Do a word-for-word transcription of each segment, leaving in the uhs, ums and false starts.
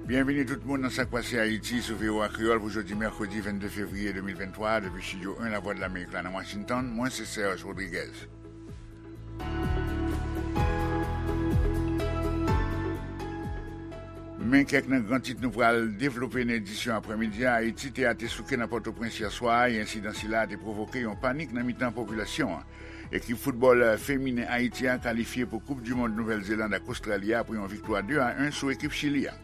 Byenvini tout moun nan Sa k Pase Ayiti sou V O A Kreyòl pou jodi mèkredi vennde fevriye de mil venntwa, depi Estidyo en Lavwadlamerik la nan Washington. Mwen se Serge Rodriguez. Men kèk nan gran tit nou pral devlope nan edisyon aprèmidi a. Ayiti, tè a te souke nan Pòtoprens yè swa a, e ensidan sila a te pwovoke yon panik nan mitan popilasyon an. Ekip foutbòl feminen Ayiti a kalifye pou Koup di Mond Nouvèl Zeland ak Ostrali a apre yon viktwa de a en sou ekip Chili a.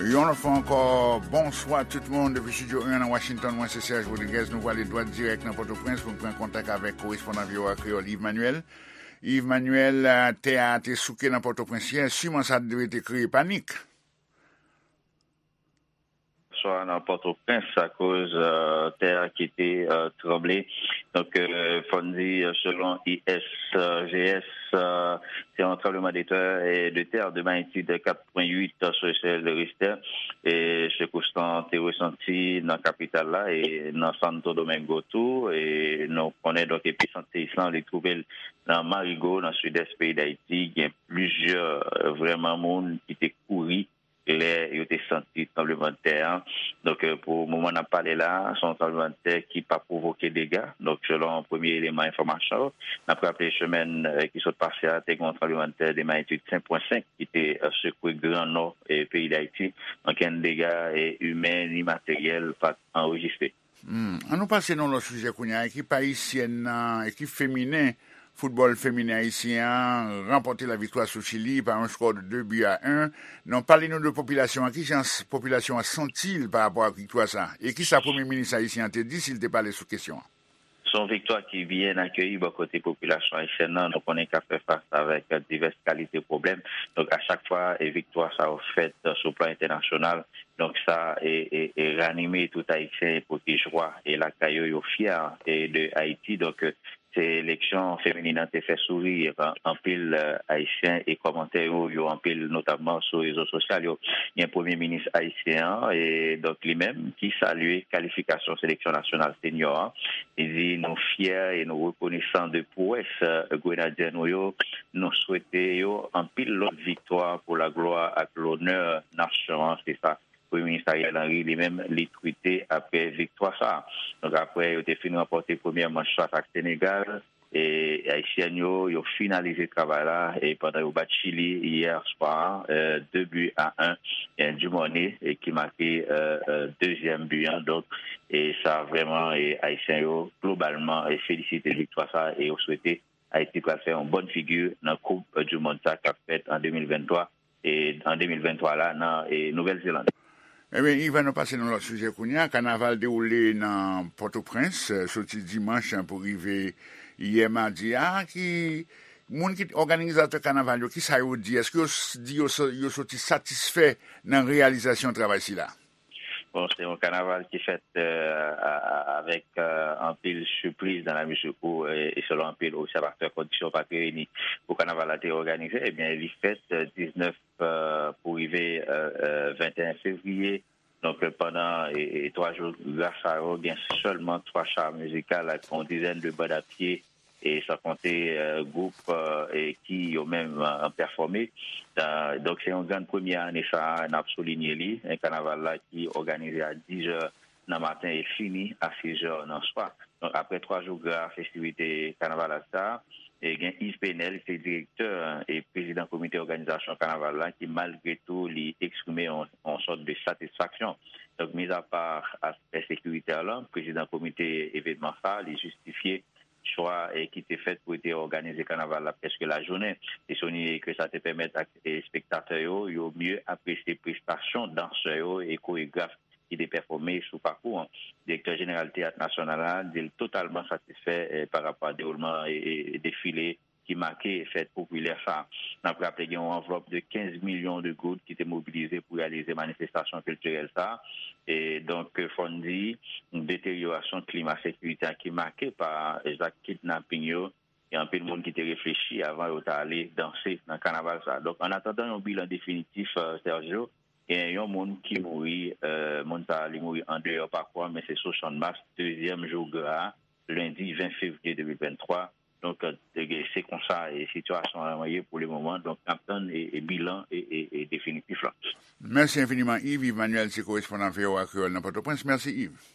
Yon lòt fwa ankò, bonswa tout moun depi Estidyo en nan Washington. Mwen se Serge Rodriguez. Nou prale dwat dirèk nan Pòtoprens pou n pran kontak avèk korespondan V O A Kreyòl Yves Manuel. Yves Manuel, tè a te souke nan Pòtoprens yè, siman sa dwe te kreye panik. Swa nan Pòtoprens akoz tè a ki te tranble. Donk, fò n di, selon I S G S, se yon tranbleman de tè, de tè de magnitid kat pwen uit sou echèl Richter. E sekous lan te resanti nan kapital la e nan Santo Domingo tou. E nou konnen, donk, episant seyis lan, li twouve l nan Marigo, nan sidès peyi Dayiti. Gen plizyè, vrèman, moun ki te kouri lè yo te santi tranblemanntè an. Donk, pou moman n ap pale la, se yon tranblemanntè ki pa pwovoke dega. Donk, selon premye eleman enfòmasyon, n ap raple semèn ki sot pase a, te gen yon tranblemanntè de magnitid senk pwen senk ki te sekwe Gran Nò peyi Dayiti. Okenn dega imen ni materyèl pa t anrejistre. Hmm. An nou pase nan lòt sijè kounye a. Ekip ayisyèn nan, ekip feminen, foutbòl feminen ayisyen an ranpòte laviktwa sou Chili pa yon skò de de bi a en. Non, pale nou de popilasyon an. Kijan popilasyon an santi l pa rapò ak viktwa sa a? E kisa premye minis ayisyen an te di si l te pale sou kesyon an? Se yon viktwa ki byen akeyi bò kote popilasyon ayisyèn nan. Nou konnen k ap fè fas avèk divès kalite pwoblèm. Donk, a chak fwa, e viktwa sa yo fèt sou plan entènasyonal, donk, sa e, e, e ranime tout Ayisyen pou ki jwa e lakay yo, yo fyè e de Ayiti. Donk, seleksyon feminin an te fè souri anpil Ayisyen e kòmantè yo, yo anpil, notamman sou rezo sosyal yo. Gen premye minis ayisyen an, e donk, li menm ki salye kalifikasyon seleksyon nasyonal senior an. Li di, nou fyè e nou rekonesan de pwès grenadye nou yo. Nou swete yo anpil lòt viktwa pou laglwa ak lonè nasyon an. Se sa Premye Minis Ariel Henry, li menm, li twite apre viktwa sa a. Donk, apre yo te fin ranpòte premyè manch fas ak Senegal, e ayisyèn yo, yo finalize travay la, e pandan yo bat Chili yè swa, e, de bi a en, e, Dumornay, e, ki make, e, e, dezyèm bi an. Donk, e sa vrèman, e ayisyen yo, globalman, e felisite viktwa sa a, e yo swete Ayiti pral fè yon bòn figi nan Koup di Mond sa k ap fèt an de mil venntwa, e, an de mil venntwa la nan, e, Nouvèl Zeland. Ebyen, Ivan, nou pase nan lòt sijè kounye a. Kanaval dewoule nan Pòtoprens, e, soti dimanch pou rive yè madi a. Ki moun ki òganizatè kanaval yo, kisa yo di? Èske yo s- di yo s- yo soti satisfè nan reyalizasyon travay sila? Bon, se yon kanaval ki fèt, e, a- a- avèk, e, anpil sipriz, dans la mesure où, e, e selon anpil obsèvatè, kondisyon pa t reyini pou kanaval la te òganize. Ebyen, li fèt, e, diznèf, e, pou rive, e, e, venteyen fevriye. Donk, e, pandan, e, e, twa jou gra sa yo, gen sèlman twa cha mizikal ak yon dizèn de band a pye, e san konte, e, gwoup, e, e ki yo menm, e, pèfòme. E, donk, se yon grann premyè ane sa a, n ap soulinye li, e, kanaval la ki òganize a diz è nan maten e fini a sis è nan swa. Donk, apre twa jou gra festivite kanaval sa a, e gen Yves Penel, ki se direktè e prezidan komite òganizasyon kanaval la, ki malgre tou li eksprime yon, yon sòt de satisfaksyon. Donk, mizapa aspè sekiritè lan, prezidan komite evenman sa a, li jistifye chwa, e, ki te fèt pou te òganize kanaval la prèske lajounen. Li souliye ke sa te pèmèt ak, e, espektatè yo, yo mye apresye prestasyon dansè yo e koregraf ki te pèfòme sou pakou an. Direktè jeneral Teyat Nasyonal la di l totalman satisfè, e, pa rapò a dewoulman, e, e, defile ki make fèt popilè sa a. N ap raple gen yon anvlòp de kenz milyon de goud ki te mobilize pou reyalize manifestasyon kiltirèl sa a. E donk, fò n di, deteryorasyon klima sekirite a ki make pa zak kidnaping yo, gen anpil moun ki te reflechi avan yo ta ale danse nan kanaval sa a. Donk, an atandan yon bilan definitif, e, Sergio, Gen yon moun ki mouri, euh, moun sa a li mouri andeyò pakou a, men se sou Channmas, dezyèm jou gra a, lendi ven fevriye de mil venntwa. Donk, euh, se konsa e sitiyasyon an ye pou le moman. Donk, n ap tann e, e bilan e, e, e definitif la. Mèsi enfiniman, Yves. Yves Manuel se korespondan V O A Kreyòl nan Pòtoprens. Mèsi, Yves.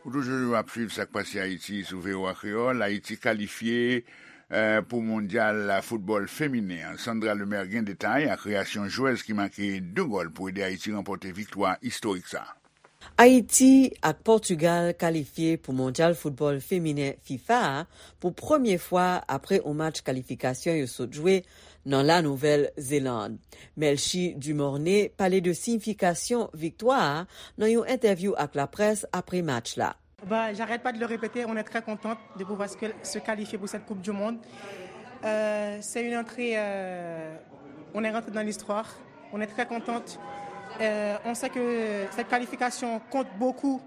Ou toujou ap swiv sa k pase Ayiti sou V O A Kreyòl. Ayiti kalifye, eh, pou mondyal foutbòl feminen an. Sandra Lemaire gen detay ak reyasyon jwèz ki make de gòl pou ede Ayiti ranpòte viktwa istorik sa. Ayiti ak Pòtigal kalifye pou mondyal foutbòl feminen fifa a pou premye fwa apre yon match kalifikasyon yo sot jwe nan La Nouvèl Zeland. Melchie Dumornay pale de siyifikasyon viktwa a nan yon entèvyou ak laprès apre match la. Bah, j'arrête pas de le répéter, on est très contente de pouvoir se, se qualifier pour cette Coupe du Monde. Euh, c'est une entrée, euh, on est rentré dans l'histoire, on est très contente. Euh, on sait que cette qualification compte beaucoup,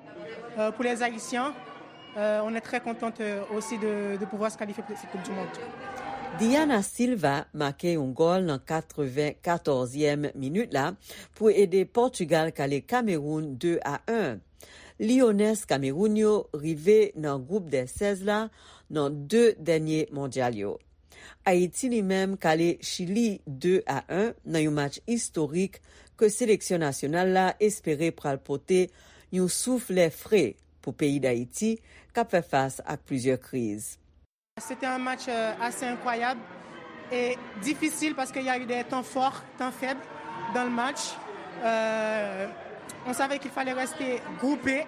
euh, pour les Haïtiens. Euh, on est très contente, euh, aussi de, de pouvoir se qualifier pour cette Coupe du Monde. Diana Silva make yon gòl nan katrevenkatòzyèm minit la pou ede Pòtigal kale Kamewoun de a en. Liyonès Kamewoun yo rive nan gwoup dè sèz la nan de dènye mondyal yo. Ayiti li menm kale Chili de a en nan yon match istorik ke seleksyon nasyonal la espere pral pote yon souf lè fre pou peyi Dayiti k ap fè fas ak plizyè kriz. C'était un match, euh, assez incroyable et difficile parce qu'il y a eu des temps forts, temps faibles dans le match. Euh, on savait qu'il fallait rester groupés,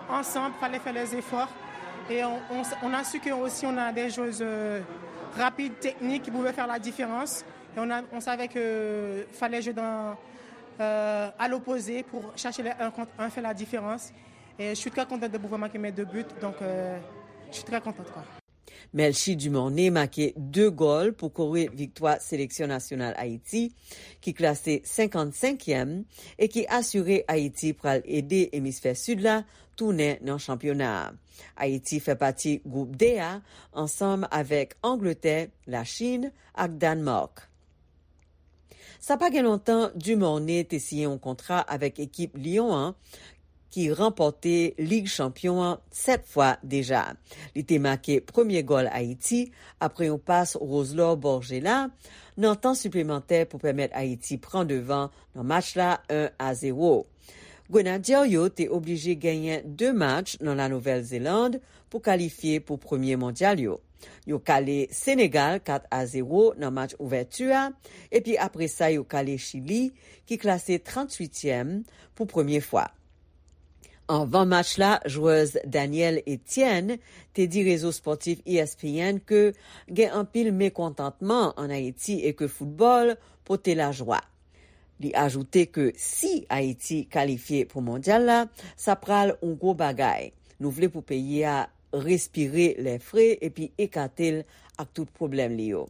ensemble, fallait faire les efforts. Et on, on, on a su que aussi on a des joueuses, euh, rapides, techniques, qui pouvaient faire la différence. Et on a, on savait que fallait jouer dans, euh, à l'opposé pour chercher les un contre un, faire la différence. Et je suis très contente de pouvoir marquer mes deux buts, donc, euh, je suis très contente, quoi. Melchie Dumornay make de gòl pou kore viktwa seleksyon nasyonal Ayiti, ki klase senkannsenkyèm, e ki asire Ayiti pral ede emisfè sid la tounen nan chanpyona a. Ayiti fè pati gwoup D a ansanm avèk Angletè, Lachin ak Dànmak. Sa pa gen lontan, Dumornay te siyen yon kontra avèk ekip Lyon an, ki ranpòte Lig Chanpyon an sèt fwa deja. Li te make premye gòl Ayiti apre yon pas Roselor Borgella nan tan siplemantè pou pèmèt Ayiti pran devan nan match la en a zewo. Grenadye yo te oblije genyen de match nan La Nouvèl Zeland pou kalifye pou premye mondyal yo. Yo kale Senegal kat a zewo nan match ouvèti a, epi apre sa yo kale Chili, ki klase tranntuityèm, pou premye fwa. Anvan match la, jwèz Danielle Etienne te di rezo spòtif E S P N ke gen anpil mekontantman ann Ayiti e ke foutbòl pote lajwa. Li ajoute ke si Ayiti kalifye pou mondyal la, sa pral yon gwo bagay. Nou vle pou peyi a respire lè fre epi ekate l ak tout pwoblèm li yo.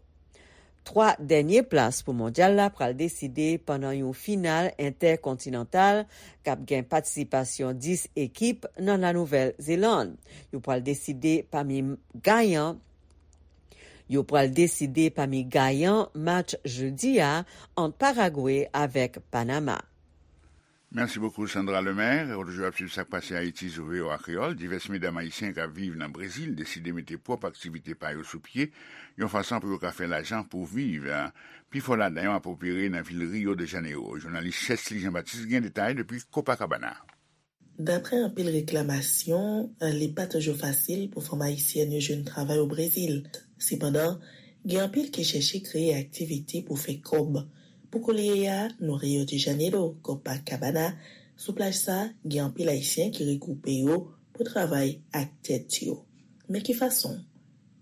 Twa dènye plas pou mondyal la pral deside pandan yon final entèkontinantal k ap gen patisipasyon dis ekip nan La Nouvèl Zeland. Yo pral deside pami gayan Yo pral deside pami gayan match jedi a ant Paragwe avèk Panama. Mèsi bokou, Sandra Lemaire. Ou toujou ap swiv sa k pase Ayiti sou V O A Kreyòl. Divès medam ayisyen k ap viv nan Brezil deside mete pwòp aktivite pa yo sou pye, yon fason pou yo ka fè lajan pou viv. Pifò ladan yo ap opere nan vil Rio de Janeiro. Jounalis Chesly Jean Baptiste gen detay depi Copacabana. Daprè anpil reklamasyon, li pa toujou fasil pou fanm ayisyèn yo jwenn travay o Brezil. Sepandan, gen anpil ki chèche kreye aktivite pou fè kòb. Pou kounye a, nou Rio de Janeiro, Copacabana, sou plaj sa, gen anpil Ayisyen ki regwoupe yo pou travay ak tèt yo. Men ki fason?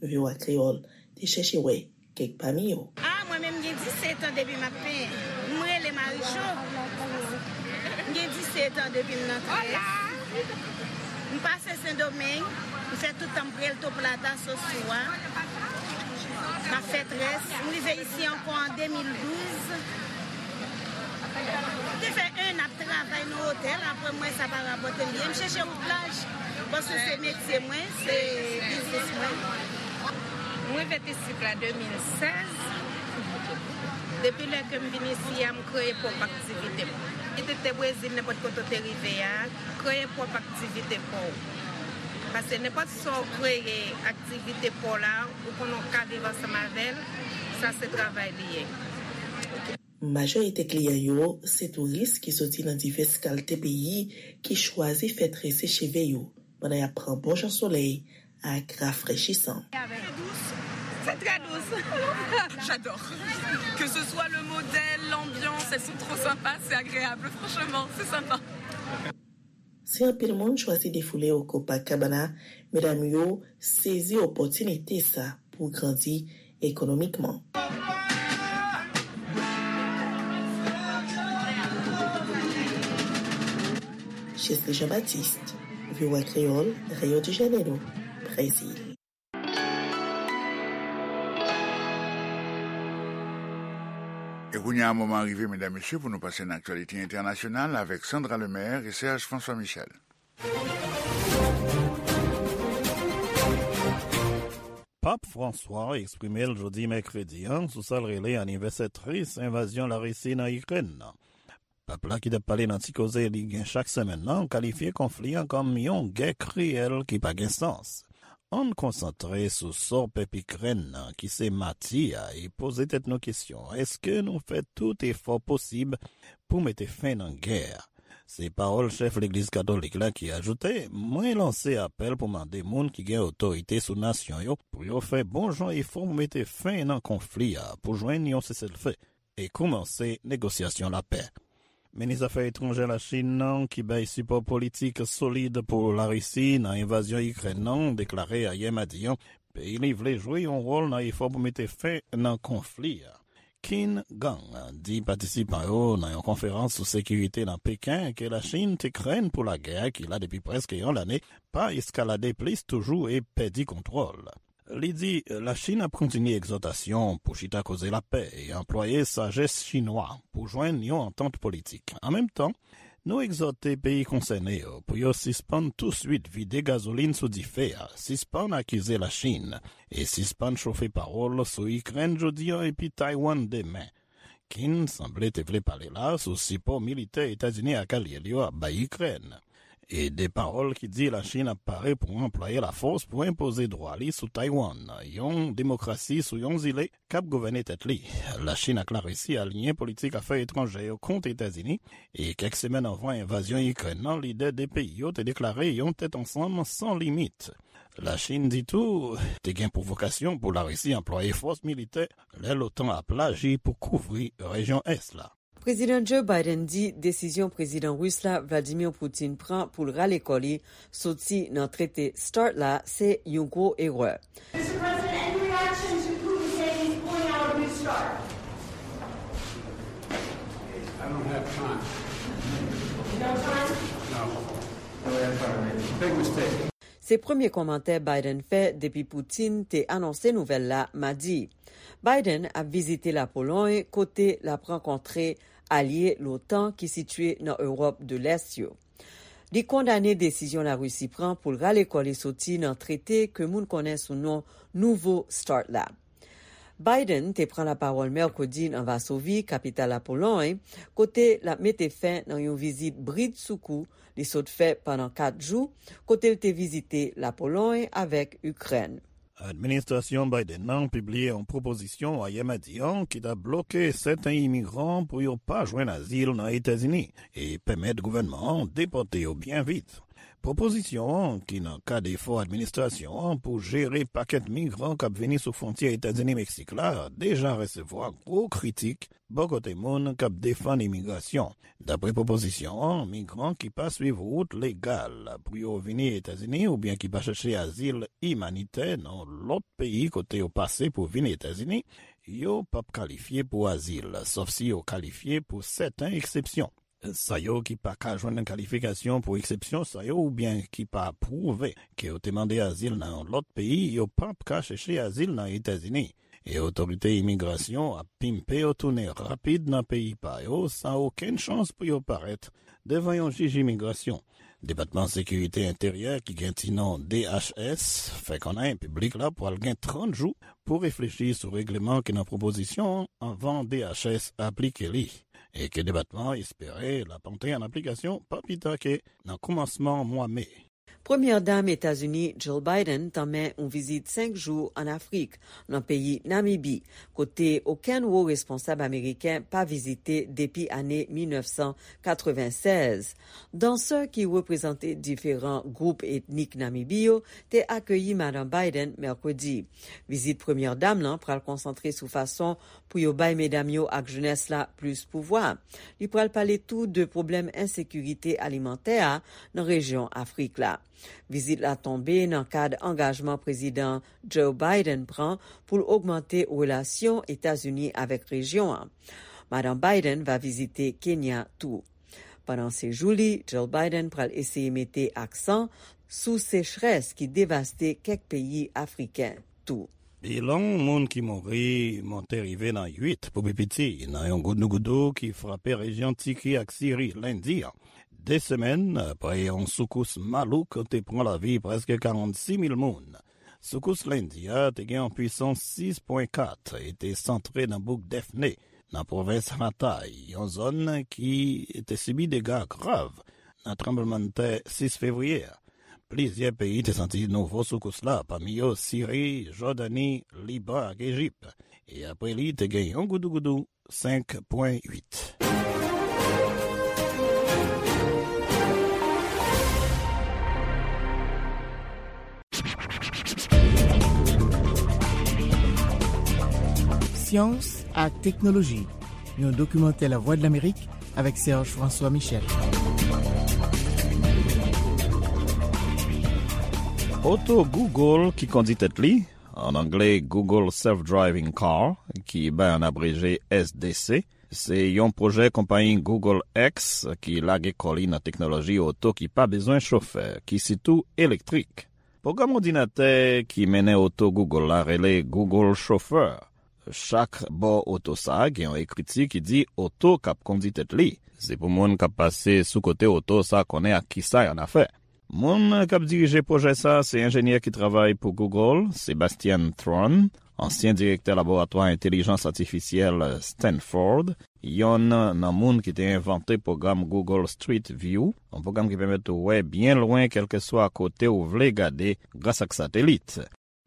V O A Kreyòl te chèche wè kèk pami yo. A, mwen menm, m gen disèt an depi m ap penyen. M rele Marijo. M gen disèt an depi m nan trèz. M pase Sendomeng. M fè tout tan m Puerto Plata, Sosua. M ap fè trèz. M rive isi ankò an de mil douz. M te fè en ap travay nan otèl, apre m wè sa pa rapòte m byen. M chèche yon plaj, paske se metye mwen, se biznis mwen. Mwen vin isit la de mil sèz. Depi lè ke m vin isi a, m kreye pwòp aktivite m. Kit ou te Brezil, nenpòt kote w te rive a, kreye pwòp aktivite pa w. Paske nenpòt sa w kreye aktivite pa w la, ou konnen w ka viv ansanm avè l, sa se travay li ye. Majorite kliyan yo se touris ki soti nan divès kalte peyi ki chwazi fè trese cheve yo pandan y ap pran bon jan solèy ak rafrechisan. C'est très doux. J'adore. Que ce soit le modèle, l'ambiance, elles sont trop sympas, c'est agréable, franchement, c'est sympa. Si anpil moun chwazi defoule yo Copacabana, medam yo sezi opòtinite sa pou grandi ekonomikman. Chesley Jean-Baptiste, V O A Kreyòl, Rio de Janeiro, Brezil. E kounye a, moman rive, medam, mesye, pou nou pase nan aktyalite entènasyonal avèk Sandra Lemaire e Serge François Michel. Pap Franswa eksprime l jodi mèkredi an sou sa l rele anivèsè tris envazyon Larisi nan Ikrèn nan. Pap la ki t ap pale nan ti koze li gen chak semèn nan kalifye konfli an kòm yon gè kriyèl ki pa gen sans. Ann konsantre sou sa pèp Ikrèn nan ki se mati a e poze tèt nou kesyon, èske nou fè tout efò posib pou mete fen nan gè a? Se pawòl chèf legliz katolik la ki ajoute, mwen lanse apèl pou mande moun ki gen otorite sou nasyon yo pou yo fè bon jan efò pou mete fen nan konfli a, pou jwenn yon seselfe e koumanse negosyasyon lapè. Minis afè etranjè Lachin nan, ki bay sipò politik solid pou Larisi nan envazyon Ikrèn nan, deklare ayè madi an, peyi li vle jwe yon wòl nan efò pou mete fen nan konfli a. Qin Gang di patisipan yo nan yon konferans sou sekirite nan Peken ke Lachin te krenn pou lagè a ki la depi prèske yon lane pa eskalade plis toujou e pèdi kontwòl. Li di Lachin ap kontinye egzòtasyon pou chita koze lapè e anplwaye sajès chinwa pou jwenn yon antant politik. An menm tan, nou egzòte peyi konsène yo pou yo sispann touswit vide gazolin sou dife a, sispann akize Lachin e sispann chofe pawòl sou Ikrèn jodi a epi Taiwan demen. Qin sanble te vle pale la sou sipò militè Etazini ak alye l yo ap bay Ikrèn. E de pawòl ki di Lachin ap pare pou anplwaye lafòs pou enpoze dwa li sou Taiwan, yon demokrasi sou yon zile k ap gouvène tèt li. Lachin ak Larisi aliyen politik afè etranjè yo kont Etazini, e kèk semèn anvan envazyon Ikrèn nan, lidè de peyi yo te deklare yon tèt ansanm san limit. Lachin di tou, te gen pwovokasyon pou Larisi anplwaye fòs militè lè l'OTAN ap laji pou kouvri rejyon ès la. Prezidan Joe Biden di desizyon Prezidan Ris la, Vladimir Putin, pran pou l rale kò li soti nan trete START la se yon gwo erè. Mister President, any reaction to Putin saying he's pulling out of New START? I don't have time. No time? No. Big mistake. Se premye kòmantè Biden fè depi Putin te anonse nouvèl la madi. Biden ap vizite Lapolòy, kote l ap rankontre alye l'OTAN ki sitiye nan Ewòp de Lès yo. Li kondane desizyon Larisi pran pou l rale kò li soti nan trete ke moun konnen sou non nouvo START la. Biden te pran lapawòl mèkredi nan Vasovi, kapital Lapolòy, kote l ap mete fen nan yon vizit bridsoukou li sot fè pandan kat jou, kote l te vizite Lapolòy avèk Ikrèn. Administrasyon Biden nan pibliye yon pwopozisyon ayè madi an ki t ap bloke sèten imigran pou yo pa jwenn azil nan Etazini e pèmèt gouvènman an depòte yo byen vit. Pwopozisyon an, ki nan kad efò administrasyon an pou jere pakèt migran k ap vini sou fwontyè Etazini-Meksik la, deja resevwa gwo kritik bò kote moun k ap defann imigrasyon. Dapre pwopozisyon an, migran ki pa swiv wout legal pou yo vini Etazini oubyen ki pa chèche azil imanitè nan lòt peyi kote yo pase pou vin Etazini, yo p ap kalifye pou azil, sòf si yo kalifye pou sèten eksepsyon. Sa yo ki pa ka jwenn kalifikasyon pou eksepsyon sa yo oubyen ki pa pwouve ke yo te mande azil nan yon lòt peyi, yo p ap ka chèche azil nan Etazini. E otorite imigrasyon ap pimpe yo tounen rapid nan peyi pa yo, san okenn chans pou yo parèt devan yon jij imigrasyon. Depatman Sekirite Enteryè, ki gen ti non D H S, fè konnen piblik la pwal gen trant jou pou reflechi sou regleman ki nan pwopozisyon an anvan D H S aplike li, e ke depatman an espere l ap antre an aplikasyon pa pita ke nan kòmansman mwa me. Premyè Dam Etazini, Jill Biden, tanmen yon vizit senk jou ann Afrik, nan peyi Namibi, kote okenn wo responsab ameriken pa vizite depi ane mil nèf san katrevennsèz. Dansè ki reprezante diferan gwoup etnik Namibi yo te akeyi Madan Biden mèkredi. Vizit Premyè Dam lan pral konsantre sou fason pou yo bay medam yo ak jenès la plis pouvwa. Li pral pale tou de pwoblèm ensekirite alimantè a nan rejyon Afrik la. Vizit la tonbe nan kad angajman Prezidan Joe Biden pran pou l ogmante relasyon Etazini avèk rejyon an. Madan Biden va vizite Kenya tou. Pandan sejou li, Jill Biden pral eseye mete aksan sou sechrès ki devaste kèk peyi afriken tou. Bilan moun ki mouri monte rive nan uit pou pi piti nan yon goudougoudou ki frape rejyon Tiki ak Siri lendi an, de semèn apre yon soukous malouk te pran lavi prèske karannsis mil moun. Soukous lendi a te gen yon pwisans sis pwen kat e te santre nan bouk Defne, nan pwovens Hatay, yon zòn ki te sibi dega grav nan tranblemanntè sis fevriye a. Plizyè peyi te santi nouvo soukous la, pami yo Siri, Jòdani, Liban ak Ejip. E apre li, te gen yon goudougoudou senk pwen uit. Syans ak teknoloji, yon dokimantè Lavwadlamerik avèk Serge François Michel. Oto Google ki kondi tèt li, an anglè Google Self-Driving Car, ki bay an abreje S D C, se yon pwojè konpayi Google X ki lage kò li nan teknoloji oto ki pa bezwen chofè, ki sitou elektrik. Pwogram òdinatè ki mennen oto Google la rele Google Chauffeur. Chak bò oto sa a gen yon ekriti ki di oto k ap kondi tèt li. Se pou moun k ap pase sou kote oto sa a konnen ak kisa y annafè. Moun k ap dirije pwojè sa a se enjenyè ki travay pou Google, Sebastian Thrun, ansyen direktè laboratwa entèlijans atifisyèl Stanford, yonn nan moun ki te envante pwogram Google Street View, yon pwogram ki pèmèt ou wè byen lwen kèlkeswa kote ou vle gade gras ak satelit.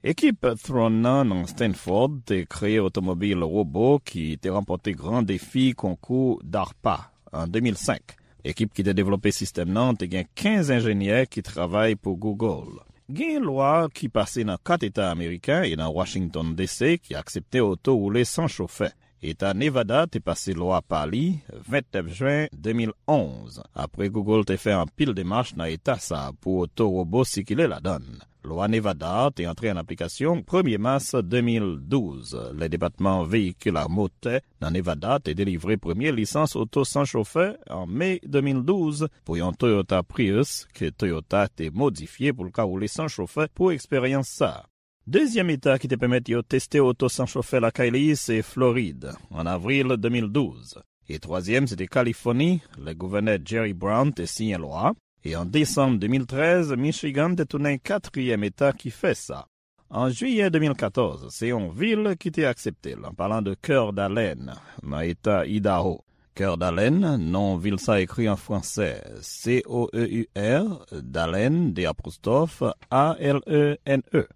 Ekip Thrun nan nan Stanford te kreye otomobil wobo ki te ranpòte gran defi konkou DARPA an de mil senk. Ekip ki te devlope sistèm nan te gen kenz enjenyè ki travay pou Google. Gen lwa ki pase nan kat eta ameriken e nan Washington D C ki aksepte oto woule san chofè. Eta Nevada te pase lwa pa li vennèf jen de mil onz, apre Google te fè anpil demach nan eta sa a pou oto wobo sikile ladan l. Lwa Nevada a te antre an aplikasyon premye mas de mil douz, lè Depatman Veyikil a Motè nan Nevada te delivre premye lisans oto san chofè an me de mil douz pou yon Toyota Prius ke Toyota te modifye pou l ka woule san chofè pou eksperyans sa a. Dezyèm eta ki te pèmèt yo teste oto san chofè lakay li se Florid, an avril de mil douz. E twazyèm, se te Kalifòni, lè gouvènè Jerry Brown te siyen lwa a, e an desanm de mil trèz, Michigan te tounen katriyèm eta ki fè sa. An jiyè de mil katòz, se yon vil ki te aksepte l, an palan de Coeur d'Alene, nan eta Idaho. Coeur d'Alene, non vil sa ekri an fransè, C O E U R, d'Alene, de apostwòf, A L E N E.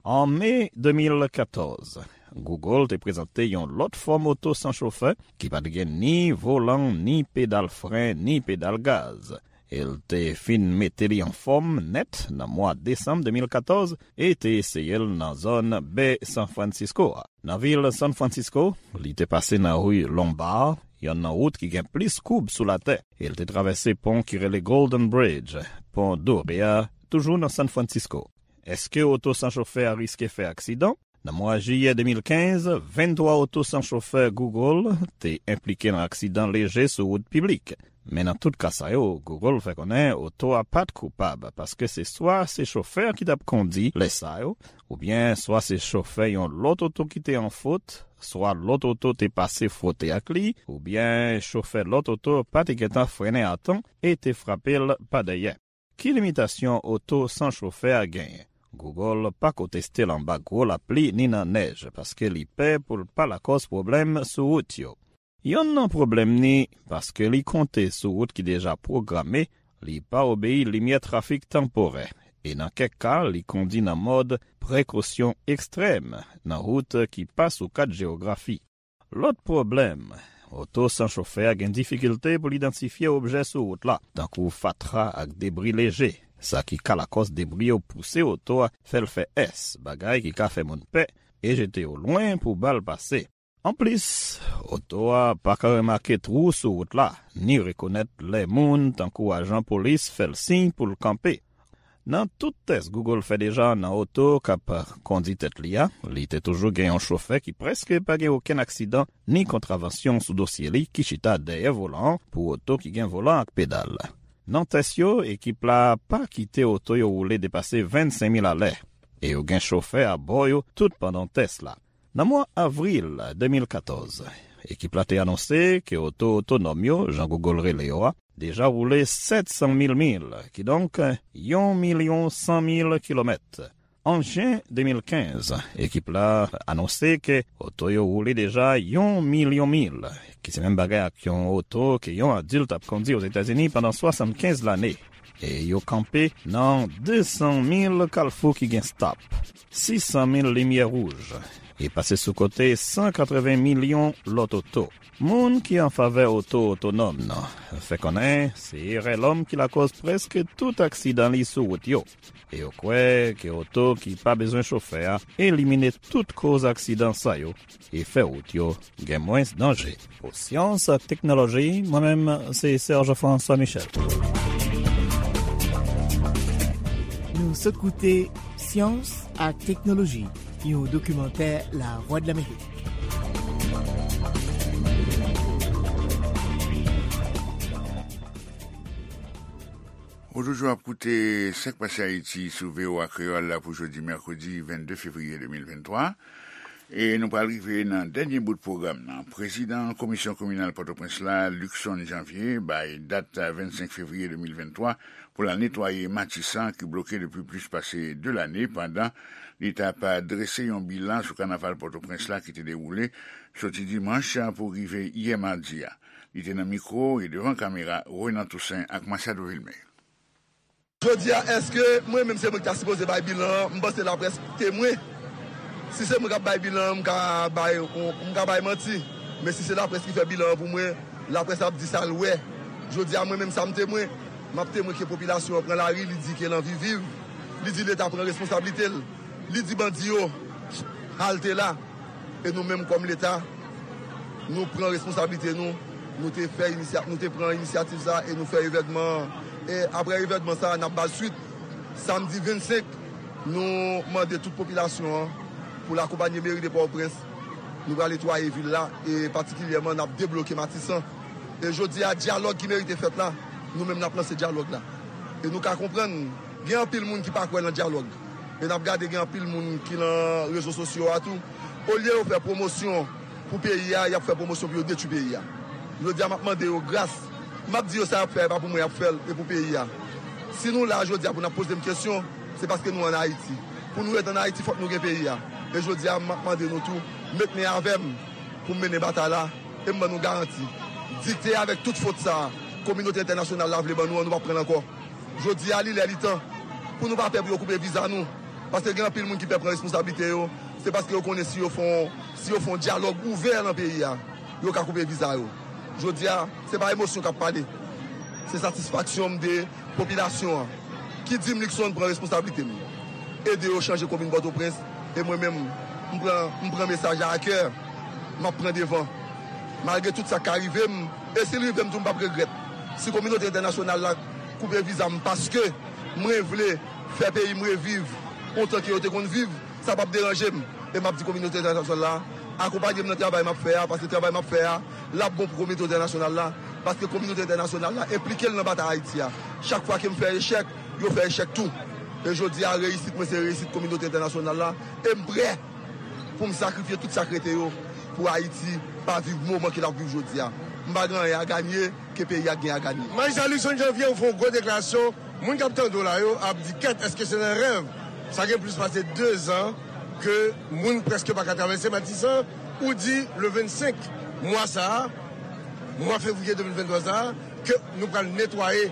An me de mil katòz, Google te prezante yon lòt fòm oto san chofè ki pa t gen ni volan, ni pedal fren, ni pedal gaz. E l te fin mete li anfòm nèt nan mwa desanm de mil katòz e te eseye l nan zòn bè San Francisco a. Nan vil San Francisco, li te pase nan ri Lombard, yonn nan wout ki gen plis koub sou latè, e l te travèse pon ki rele Golden Bridge, pon dore a, toujou nan San Francisco. Èske oto san chofè a riske fè aksidan? Nan mwa jiyè de mil kenz, venntwa oto san chofè Google te enplike nan aksidan leje sou wout piblik. Men nan tout ka sa yo, Google fè konnen oto a pa t koupab, paske se swa se chofè a ki t ap kondi lè sa yo, oubyen swa se chofè yon lòt oto ki te an fot, swa lòt oto te pase fwote ak li, oubyen chofè lòt oto pa te gentan frennen a tan e te frape l pa dèyè. Ki limitasyon oto san chofè a genyen? Google pako teste l anba gwo lapli ni nan nèj, paske li pè pou l pa lakòz pwoblèm sou wout yo. Yonn nan pwoblèm ni, paske li konte sou wout ki deja pwograme, li pa obeyi limyè trafik tanporè, e nan kèk ka, li kondi nan mòd prekosyon ekstrèm nan wout ki pa sou kat jewografi. Lòt pwoblèm, oto san chofè a gen difikilte pou l idantifye objè sou wout la, tankou fatra ak debri leje, sa ki ka lakòz debri yo pouse oto a, fè l fè S, bagay ki ka fè moun pè e jete yo lwen pou ba l pase. Anplis, oto a pa ka remake twou sou wout la, ni rekonèt lè moun, tankou ajan polis, fè l siy pou l kanpe. Nan tout tès Google fè deja nan oto k ap kondi tèt li a, li te toujou gen yon chofè ki prèske pa gen okenn aksidan ni kontravansyon sou dosye li ki chita dèyè volan an pou oto ki gen volan ak pedal. Nan tès yo, ekip la pa kite oto yo woule depase vennsenk mil alè, e yo gen chofè abò yo tout pandan tès la. Nan mwa avril de mil katòz, ekip la te anonse ke oto otonòm yo, jan Google rele yo a, deja woule sèt san mil mil, kidonk yon milyon san mil kilomèt. An jen de mil kenz, ekip la anonse ke oto yo woule deja yon milyon mil, ki se menm bagay ak yon oto ke yon adilt ap kondi Ozetazini pandan swasannkenz lane. E yo kanpe nan de san mil kalfou ki gen stop, sis san mil limyè wouj, e pase sou kote san katreven milyon lòt oto. Moun ki an favè oto otonòm nan fè konnen se erè lòm ki lakòz prèske tout aksidan li sou wout yo. E yo kwè ke oto ki pa bezwen chofè a elimine tout koz aksidan sa yo e fè wout yo gen mwens danje. Pou Syans ak Teknoloji, mwen menm, se Serge François Michel. Nou sot koute Syans ak Teknoloji, yon dokimantè Lavwadlamerik. Ou toujou ap koute Sa k Pase Ayiti sou V O A Kreyòl la pou jodi mèkredi vennde fevriye de mil venntwa. E nou pral rive nan dènye bout pwogram nan. Prezidan Komisyon Kominal Pòtoprens la, Luckson Janvier, bay dat vennsenk fevriye de mil venntwa pou l al netwaye Matisan ki bloke depi plis pase de lane pandan li t ap drese yon bilan sou kanaval Pòtoprens la ki te dewoule soti dimanch pou rive yè madi a. Li te nan mikwo e devan kamera Renan Toussaint ak Machado Vilmé. Jodi a, èske mwen menm se mwen ki ta sipoze bay bilan an? M panse laprès temwen. Si se mwen k ap bay bilan an, m ka bay, m ka bay manti. Men si se laprès ki fè bilan an pou mwen, laprès ap di sa l wè. Jodi a, mwen menm sa m temwen. M ap temwen ke popilasyon an pran lari, li di ke l anvi viv. Li di Leta pran responsablite l. Li di bandi yo, halte la. E nou menm kòm Leta, nou pran responsablite nou, nou te fè inisya-, nou te pran inisyativ sa e nou fè evènman an. E aprè evènman sa, n ap ba l swit. Samdi vennsenk, nou mande tout popilasyon an pou l akonpanye meri de Pòtoprens. Nou pral netwaye vil la e patikilyèman n ap debloke Matisan. E jodi a, dyalòg ki merite fèt la, nou menm n ap lanse dyalòg la. E nou ka konprann, gen anpil moun ki pa kwè nan dyalòg. E n ap gade gen anpil moun ki nan rezo sosyo a tou. Olye yo fè pwomosyon pou peyi a, y ap fè pwomosyon pou yo detwi peyi a. Jodi a, m ap mande yo gras. M ap di yo sa y ap fè a, e pa pou mwen y ap fè l, e pou peyi a. Si nou la jodi a pou n ap poze m kesyon, se paske nou ann Ayiti. Pou nou ret ann Ayiti, fòk nou gen peyi a. E jodi a, m ap mande nou tou, met men avè m pou m mennen batay la, e m ban nou garanti. Dikte avèk tout fot sa a, kominote entènasyonal la vle ban nou an, nou p ap pran l ankò. Jodi a, li lè, li tan pou nou pa pè pou yo koupe viza nou. Paske gen anpil moun ki pè pran responsablite yo. Se paske yo konnen si yo fè yon, si yo fè yon dyalòg ouvè nan peyi a, yo ka koupe viza yo. Jodi a, se pa emosyon k ap pale. Se satisfaksyon m de popilasyon an ki di m Luckson pran responsablite m. Ede yo chanje komin Pòtoprens. E mwen menm, m pran, m pran mesaj la a kè. M ap pran devan. Malgre tout sa k ka rive m, e si l rive m tou, m p ap regrèt. Si kominote entènasyonal la koupe viza m paske mwen vle fè peyi m reviv ontan ke yo te konn viv, sa p ap deranje m. E m ap di kominote entènasyonal la, akonpanye m nan travay m ap fè a, paske travay m ap fè a, l ap bon pou kominote entènasyonal la, paske kominote entènasyonal la enplike l nan batay Ayiti a. Chak fwa ke m fè echèk, yo fè echèk tou. E jodi a, reyisit mwen se reyisit kominote entènasyonal la, e m prè pou m sakrifye tout sa k rete yo pou Ayiti pa viv moman ke l ap viv jodi a. M pa gen anyen a ganye ke peyi a gen a ganye. Majistra Luckson Janvier, ou fè yon gwo deklarasyon, moun k ap tande w la yo ap di, kèt, èske se nan rèv Sa gen plis pase de zan ke moun prèske pa ka travèse Matisan. Ou di le vennsenk mwa sa a, mwa fevriye de mil venntwa sa a, ke nou pral netwaye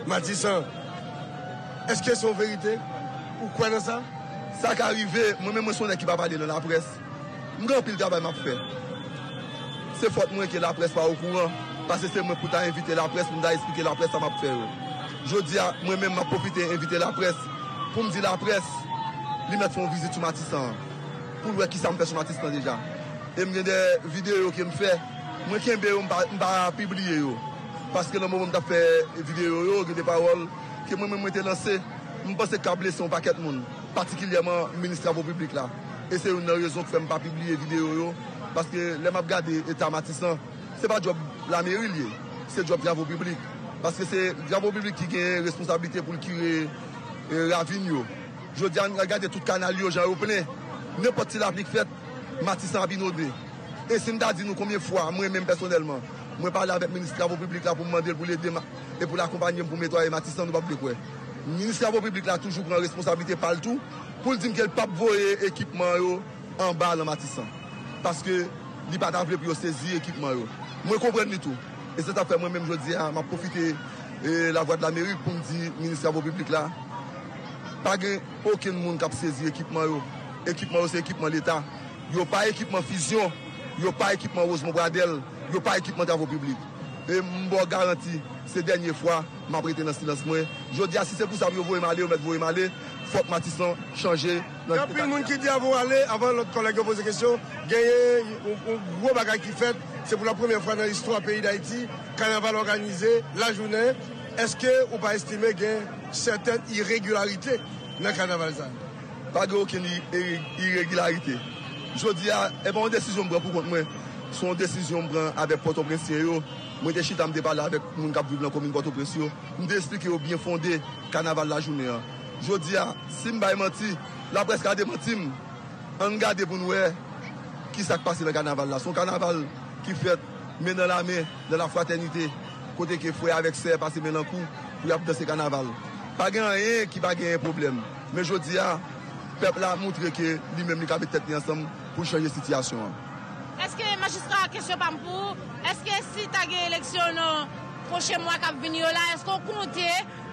Matisan. Èske se yon verite? Ou kwè nan sa? Sa ka rive, mwen menm mwen se yon nèg ki pa pale nan laprès. M gen anpil travay m ap fè. Se fòt mwen ke laprès pa okouran, paske se mwen pou ta envite laprès, pou m ta esplike laprès sa m ap fè yo. Jodi a, mwen menm m ap pwofite envite laprès pou m di laprès li mèt fè yon vizit sou Matisan an, pou l wè kisa m fè sou Matisan deja. E m gen de videyo ke m fè, mwen kenbe yo, m pa, m pa pibliye yo. Paske nan moman m t ap fè videyo yo, gen de pawòl ke mwen menm mwen te lanse, m panse k ap blese yon pakèt moun, patikilyèman minis travo piblik la. E se youn nan rezon k fè m pa pibliye videyo yo, paske lè m ap gade eta Matisan, se pa djòb lameri l ye, se djòb travo piblik. Paske se travo piblik ki gen responsablite pou l kire, e, ravin yo. Jodi a, n al gade tout kanal yo, jan yo plen. Nenpòt ti lapli k fèt, Matisan ap inonde. E si m ta di nou konbyen fwa, mwen menm pèsonèlman, mwen pale avèk minis travo piblik la pou m mande l pou l ede m e pou l akonpanye m pou m netwaye Matisan, nou p ap vle kwè. Minis travo piblik la toujou pran responsablite pa l tou, pou l di m ke l p ap voye ekipman yo anba nan Matisan. Paske li pa ta vle pou yo sezi ekipman yo. Mwen konprann li tou. E se sa k fè mwen menm jodi a, m ap pwofite, e, Lavwadlamerik pou m di minis travo piblik la, pa gen okenn moun k ap sezi ekipman yo. Ekipman yo se ekipman Leta. Yo pa ekipman Fusion, yo pa ekipman Rosemont Pradel, yo pa ekipman travo piblik. E m ba w garanti, se dènye fwa m ap rete nan silans mwen. Jodi a, si se pou sa pou yo voye m ale, yo mèt voye m ale. Fòk Matisan chanje nan Gen anpil moun ki di avan w ale, avan lòt kòlèg yo poze kesyon, genyen yon, yon gwo bagay ki fèt. Se pou la premyè fwa nan istwa peyi Dayiti, kanaval òganize lajounen. Èske ou pa estime gen sètèn iregilarite nan kanaval sa a? Pa gen okenn i-, i-, iregilarite. Jodi a, e pa yon desizyon m pran pou kont mwen. Se yon desizyon m pran avèk Pòtoprensyen yo. Mwen te chita, m te pale avèk moun k ap viv nan komin Pòtoprens yo. M te esplike yo byen fonde kanaval lajounen an. Jodi a, si m bay manti, laprès ka demanti m. Ann gade pou n wè kisa k pase nan kanaval la. Se yon kanaval ki fèt men nan lamen, nan lafratènite, kote ke frè avèk sè pase men nan kou pou y ap danse kanaval. Pa gen anyen ki pa genyen pwoblèm. Men jodi a, pèp la montre ke li menm li ka met tèt li ansanm pou l chanje sitiyasyon an. Èske majistra, kesyon pa m pou ou, èske si ta gen eleksyon nan pwochen mwa k ap vini yo la, èske w konte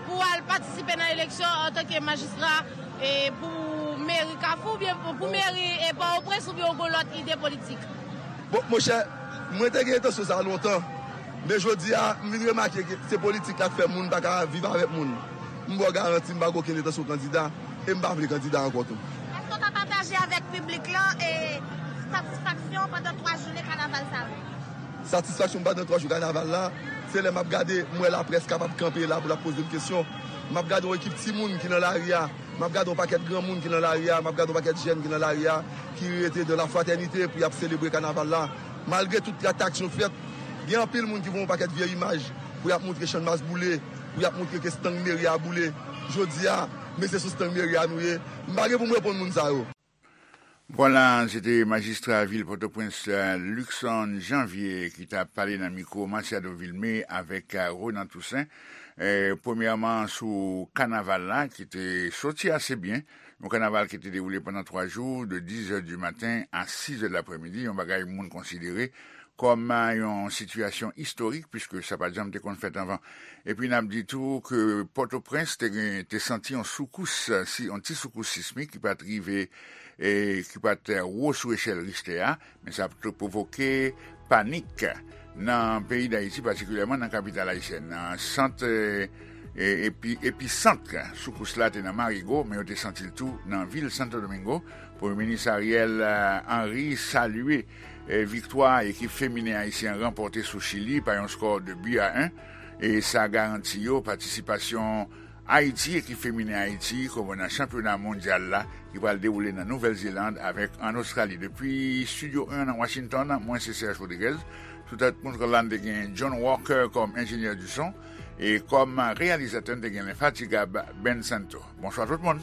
pou w al patisipe nan eleksyon antanke majistra, e, pou meri Kafou oubyen pou, pou meri, e, Pòtoprens oubyen w gen lòt ide politik? Bon, monchè, mwen te gen entansyon sa a lontan, men jodi a, m vin remake ke se politik la k fè moun pa ka viv avèk moun. M ba w garanti, m pa gen okenn entansyon kandida, e m pa vle kandida ankò tou. Èske w ka pataje avèk piblik lan, e, satisfaksyon w pandan twa jounen kanaval sa yo? Satisfaksyon m pandan twa jou kanaval la, se lè m ap gade, m wè laprès kapab kanpe la pou l ap poze m kesyon. M ap gade yon ekip timoun ki nan lari a, m ap gade yon pakèt granmoun ki nan lari a, m ap gade yon pakèt jèn ki nan lari a, ki rete dans la fraternité pou y ap selebre kanaval la. Malgre tout atak yo fèt, gen anpil moun ki voye yon pakèt vye imaj pou y ap montre Channmas boule, pou y ap montre ke estang meri a boule. Jodi a, men se sou estang meri a nou ye. M pa gen pou m reponn moun sa yo. Vwala, se te majistra vil Pòtoprens, eh, Luckson Janvier, ki t ap pale nan mikwo Masiado Vilmé avèk, eh, Ronan Toussaint. Eh, premyèman, sou kanaval la, ki te soti ase byen. Yon kanaval ki te dewoule pandan twa jou, de dizè di maten a sizè de laprèmidi, yon bagay moun konsidere kòm, eh, yon sitiyasyon istorik, piske sa pa t janm te konn fèt anvan. Epi n ap di tou ke Pòtoprens te gen, te santi yon soukous, si, yon ti soukous sismik ki pa t rive, e, ki pa t wo sou echèl Richter a, men sa te pwovoke panik nan peyi Dayiti, patikilyèman nan kapital ayisyèn nan. Sant, e, e, epi, episant soukous la te nan Marigo, men yo te santi l tou nan vil Santo Domingo. Premye minis Ariel, eh, Henry salye, eh, viktwa ekip feminen ayisyen an ranpòte sou Chili pa yon skò de bi a en, e sa garanti yo patisipasyon Ayiti, ekip feminen Ayiti, koman nan chanpyona mondyal la, ki pral dewoule nan Nouvèl Zeland avèk an Ostrali. Depi Estidyo en nan Washington, mwen se Serge Rodriguez. Sou tèt kontwòl la, n te gen John Walker kòm enjenyè di son, e kòm reyalizatè, n te gen lenfatigab Ben Santo. Bonswa tout moun.